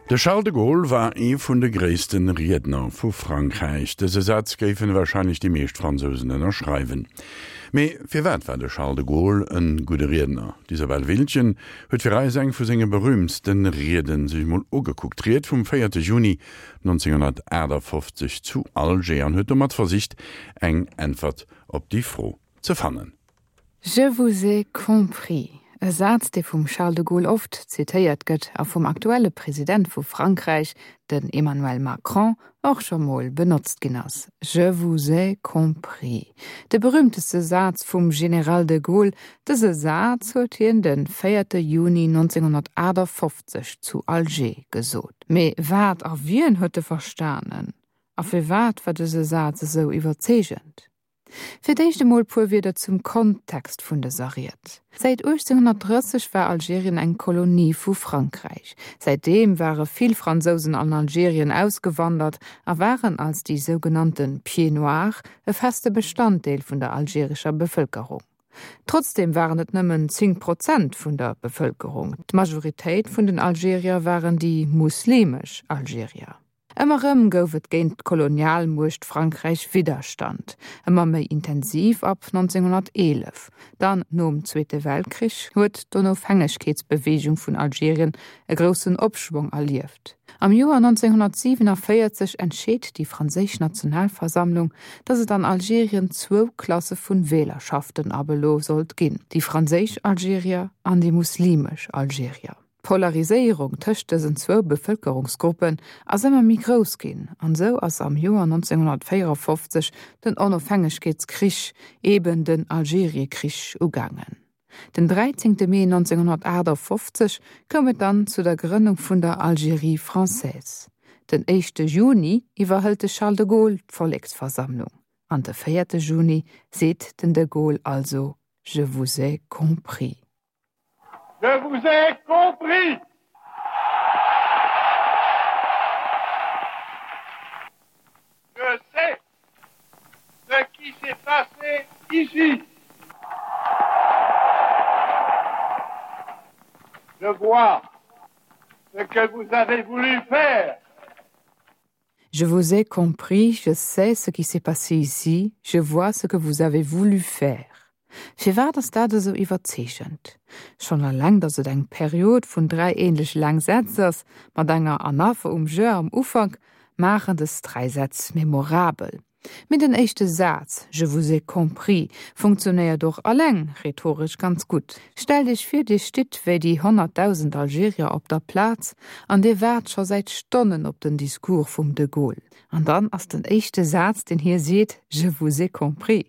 De Charles de Gaulle war ee vun de gréisste Riedner vu Frankräich. Dëse Saz géifen warscheinlech déi meescht Fransousen ënnerschreiwen. Mee firwat war de Charles de Gaulle e gudde Riedner? D'Isabelle Wildgen huet fir eis eng vu senge berüümtste Rieden sech mol ugekuckt, d'Ried vum 4 Juni 1958 zu Alger, an huet domat versicht eng Äntwert op déi Fro ze fannen. Je vous ai compris, e Saz, dee vum Charles de Gaulle oft zitéiert gëtt a vum aktuelle President vu Frankräich, den Emmanuel Macron, och scho mol benotzt ginn ass. Je vous ai compris, de berüümteste Saz vum General de Gaulle. Dëse Saz huet hien de véierte Juni 1958 zu Alger gesot. Mee wat a wien huet e verstanen? A firwat war dëse Saz esou iwwerzeegend? Fir d'éischt emol puer Wierder zum Kontext vun dëser Ried. Säit 1830 war Algerien eng Kolonie vu Frankräich. Säitdeem ware vill Fransousen an Algerien ausgewandert a waren als déi sougenannte Pieds-noirs e feste Bestanddeel vun der algerescher Bevëlkerung. Trotzdeem waren et nëmmen 10 Prozent vun der Bevëlkerung. D'Majoritéit vun den Algerier waren déi muslimesch Algerier. Ëmmer erëm gouf et géint d'Kolonialmuecht Frankräich Widderstand, ëmmer méi intensiv ab 1911. Dann nom Zweete Weltkrich huet d'Onofhängegkeetsbeweegung vun Algerien e groussen Opschwong erlieft. Am Joer 1947 entscheet déi franséisch Nationalversammlung, datt et an Algerien zwou Klasse vun Wählerschaften ab elo sollt ginn, déi franséisch Algerier an déi muslimesch Algerier. D'Polariséierung tëscht dësen zwou Bevëlkerungsgruppen ass ëmmer méi grouss ginn, an esou ass am Joer 1954 den Onofhängegkeetskrich, eben den Algeriekrich, ugaangen. Den 13 Mee 1958 koum et dann zu der Grënnung vun der Algérie française. Den éischte Juni iwwerhëlt de Charles de Gaulle d'Volleksversammlung, an de véierte Juni seet den de Gaulle also Je vous ai compris. Je vous ai compris! Je sais ce qui s'est passé ici. Je vois ce que vous avez voulu faire. Je vous ai compris, je sais ce qui s'est passé ici, je vois ce que vous avez voulu faire. Firwat ass dat esou iwwerzeegend? Schonn eleng, datt et eng Period vun 3 ähnlech laang Sätz ass, mat enger Anapher um je am Ufank, maachen dës 3 Sätz memorabel. Mee den éischte Saz, Je vous ai compris, funktionéiert och alleng rhetoresch ganz gutt. Stellt Iech vir, Dir stitt wéi déi 100.000 Algerier op der Plaz an Dir waart scho säit Stonnen op den Discours vum de Gaulle. An dann ass den éischte Saz, deen hie seet, Je vous ai compris.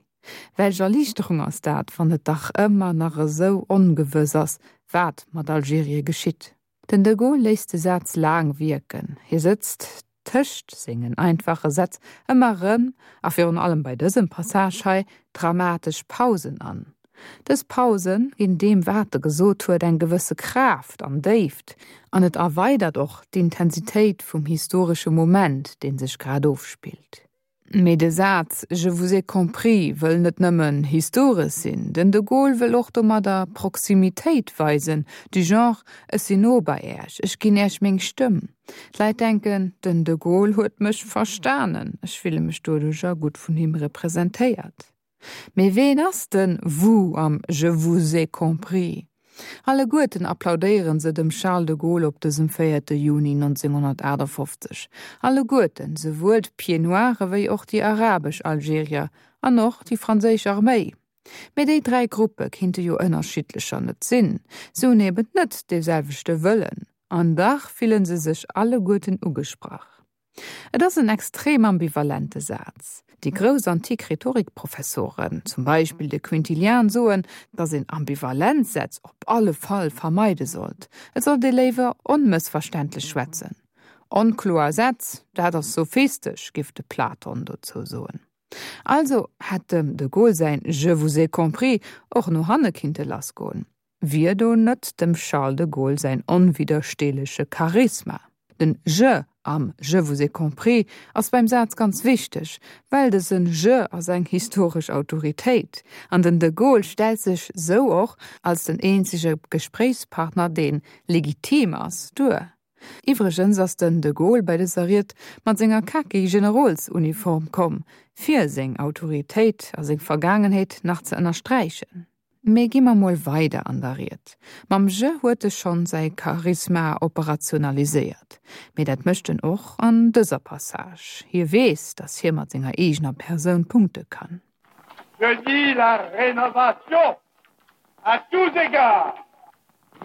Welch Erliichterung ass dat, wann et dach ëmmer nach esou ongewëss ass, wat mat Algerie geschitt. Den de Gaulle léisst de Saz laang wierken. Hie sëtzt tëscht sengen einfache Sätz ëmmer erëm, a virun allem bei dësem Passage hei, dramatesch Pausen an. Dës Pause ginn deem wat e gesot huet eng gewësse Kraaft an Déift, an et erweidert och d'Intensitéit vum historesche Moment, dee sech grad ofspillt. Mee de Saz Je vous ai compris wëll net nëmmen historesch sinn. Den de Gaulle wëll och domadder Proximitéit weisen, du genre, ech sinn no bei Äech, ech ginn Äech meng Stëmm. D'Leit denken, den de Gaulle huet mech verstanen, ech fille mech doduercher gutt vun him representéiert. Mee ween ass den vous am Je vous ai compris? Alleguerten applaudéieren se dem Charles de Gaulle op dësem véierte Juni 1958. Alleguerten, souwuel d'Pieds-Noirs ewéi och déi arabesch Algerier an och déi franséisch Arméi. Mee déi 3 Gruppe kinnte jo ënnerschiddlecher net sinn. Se hunn eben net dee selwechte Wëllen. An dach fillen se sech alleguerten ugesprach. Et ass en extrem ambivalente Saz. Déi grouss antik Rhetorikprofessoren, zum Beispill de Quintilian, soen, datt een ambivalent Sätz op alle Fall vermeide sollt. Et sollt ee léiwer onmëssverständlech schwätzen. Onkloer Sätz, dat ass sophistesch, giff de Platon dozou soen. Also hätt dem de Gaulle säin Je vous ai compris och no hanne kinnte lassgoen. Wier do net dem Charles de Gaulle säin onwiddersteeleche Charisma? Den je am Je vous ai compris ass beim Saz ganz wichteg, well dësen je ass eng historesch Autoritéit, an den de Gaulle stellt sech sou och als den eenzege Gespréichspartner deen legitim ass, duer. Iwwregens ass den de Gaulle bei dëser Ried mat senger khaki Generolsuniform komm, fir seng Autoritéit a seng Vergaangenheet nach ze ënnersträichen. Mee gi mer mol weider an der Ried. Mam Je huet e schonn säi Charisma operationaliséiert. Mee dat mécht en och an dëser Passage. Hie weess, datt hie mat senger eegener Persoun punkte kann. Je dis la rénovation à tous égards,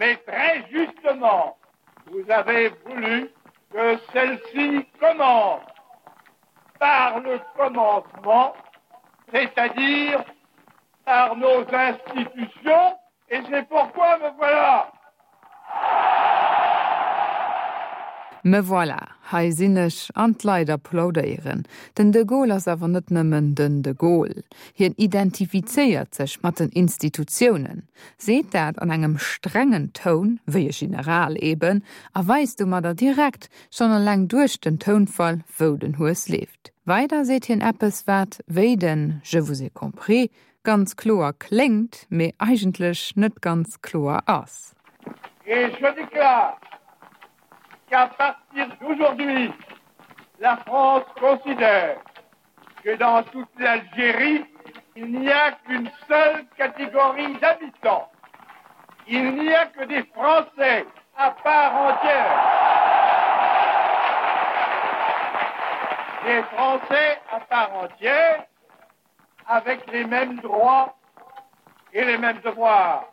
mais très justement, vous avez voulu que celle-ci commence par le commencement, c'est-à-dire par nos institutions et c'est pourquoi me voilà. Me voilà, hei sinn ech, an d'Leit applaudéieren. Den de Gaulle ass awer net nëmmen den de Gaulle. Hien identifizéiert sech mat den Institutiounen, seet dat an engem strengen Toun, wéi e General eben, a weist domadder direkt, schonn eleng duerch den Tounfall, wou den Hues leeft. Weider seet hien eppes, wat, wéi den Je vous ai compris, ganz kloer kléngt, mee eigentlech net ganz kloer ass. Et je déclare qu'à partir d'aujourd'hui, la France considère que dans toute l'Algérie, il n'y a qu'une seule catégorie d'habitants. Il n'y a que des Français à part entière. Des Français à part entière avec les mêmes droits et les mêmes devoirs.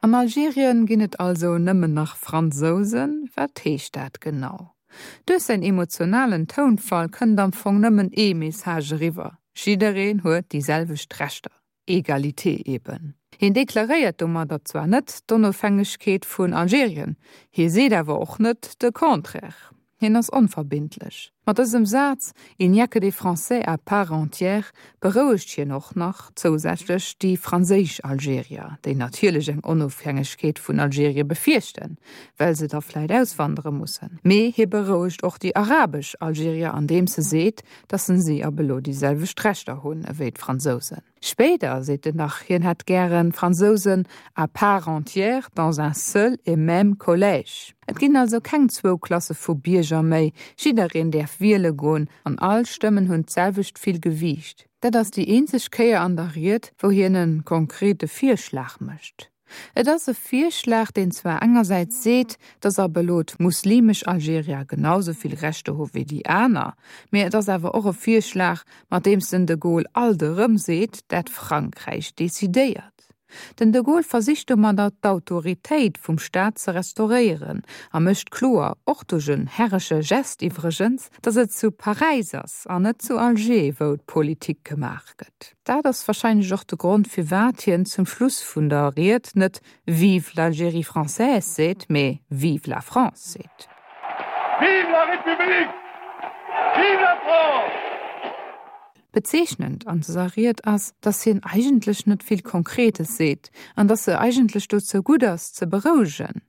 An Algerien ginn et also nëmmen nach Fransousen? Wat heescht dat genau? Duerch säin emotionalen Tounfall kënnt am Fong nëmmen ee Message eriwwer, Jiddereen huet déi selwecht Rechter. Egalité eben. Hien deklaréiert domadder zwar net d'Onofhängegkeet vun Algerien, hie seet awer och net de Contraire. Hien ass onverbindlech. Mat dësem Saz, Il n'y a que des Français à part entière, berouegt hien och nach zousätzlech déi franséisch Algerier, déi natierlech eng Onofhängegkeet vun Algerie befierchten, well se da vläit auswandere mussen. Mee hie berouegt och déi arabesch Algerier andeems e seet, dass en si ab elo déi selwecht Rechter hunn ewéi d'Fransousen. Spéider seet en nach, hien hätt gären Fransousen à part entière dans un seul et même collège. Et ginn also keng zwou Klasse vu Bierger méi, jiddereen däerf wiele goen an all Stëmmen hunn d'selwecht vill Gewiicht. Dat ass déi eenzeg Kéier an der Ried, wou hien e konkrete Virschlag mécht. Et ass e Virschlag, deen zwar engersäits seet, datt ab elo d'muslimesch Algerier genau sou vill Rechter hu wéi déi aner, mee et ass awer och e Virschlag, mat deems den de Gaulle alt erëm seet, dat Frankräich decidéiert. Den de Gaulle versicht domadder d'Autoritéit vum Staat ze restauréieren a mécht kloer, och duerch en herresche Gest iwwregens, datt et zu Paräis ass an net zu Alger, wou d'Politik gemaach gëtt. Dat ass wahrscheinlech och de Grond firwat hien zum Schluss vun der Ried net Vive l'Algérie française seet, mee Vive la France seet. Vive la République! Vive la France! Bezeechnend an dëser Ried ass, dass hien eigentlech net vill Konkretes seet an dass se eigentlech dozou gutt ass, ze berouegen.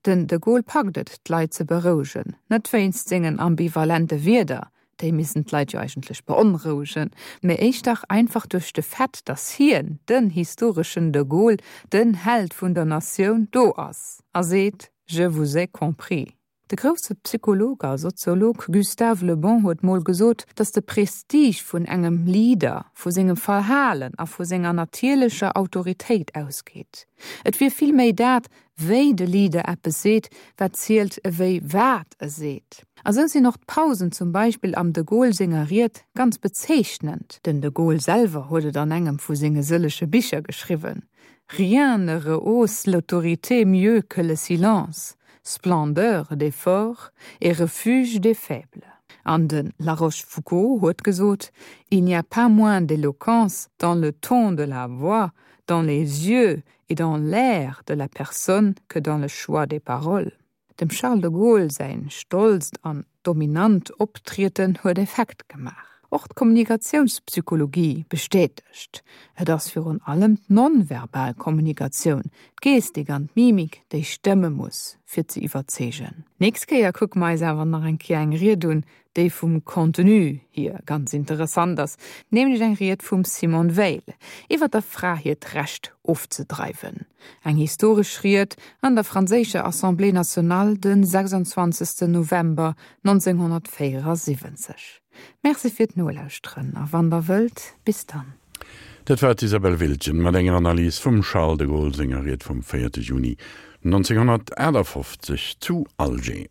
Den de Gaulle packt et, d'Leit ze berouegen, net wéinst sengen ambivalente Wierder, déi missten d'Leit jo eigentlech beonrouegen, mee éischter einfach duerch de Fait, datt hien, den historeschen de Gaulle, den Held vun der Natioun, do ass a seet, Je vous ai compris. De grousse Psycholog a Soziolog Gustave Le Bon huet mol gesot, datt de Prestige vun engem Leader vu sengem Verhalen a vu senger natierlecher Autoritéit ausgeet. Et wier vill méi dat, wéi de Leader eppes seet, wat zielt ewéi wat e seet. A sou sinn och d'Pausen zum Beispill am de Gaulle senger Ried ganz bezeechnend. Den de Gaulle selwer huet et an engem vu senge sëllege Bicher geschriwwen, Rien ne rehausse l'autorité mieux que le silence, splendeur des forts et refuge des faibles. An de La Rochefoucauld huet gesot, Il n'y a pas moins d'éloquence dans le ton de la voix, dans les yeux et dans l'air de la personne que dans le choix des paroles. Dem Charles de Gaulle säin stolzt an dominant Optrieden huet Effekt gemaach. Och d'Kommunikatiounspsychologie bestätegt, Et ass virun allem d'nonverbal Kommunikatioun, d'Gestik an d'Mimik, déi stëmme muss, fir ze iwwerzeegen. Nächst Kéier kucke mer eis awer nach eng Kéier eng Ried un, déi vum Contenu hier ganz interessant ass, nämlech eng Ried vum Simone Weil iwwer der Fra hiert Recht ofzedreiwen. Eng historesch Ried an der franséischer Assemblée nationale de 26 November 1974. Merci fir d'Nolauschteren a wann der wëllt, bis dann. Dat war d'Isabelle Wiltgen mat enger Analys vum Charles de Gaulle senger Ried vum 4 Juni 1958 zu Alger.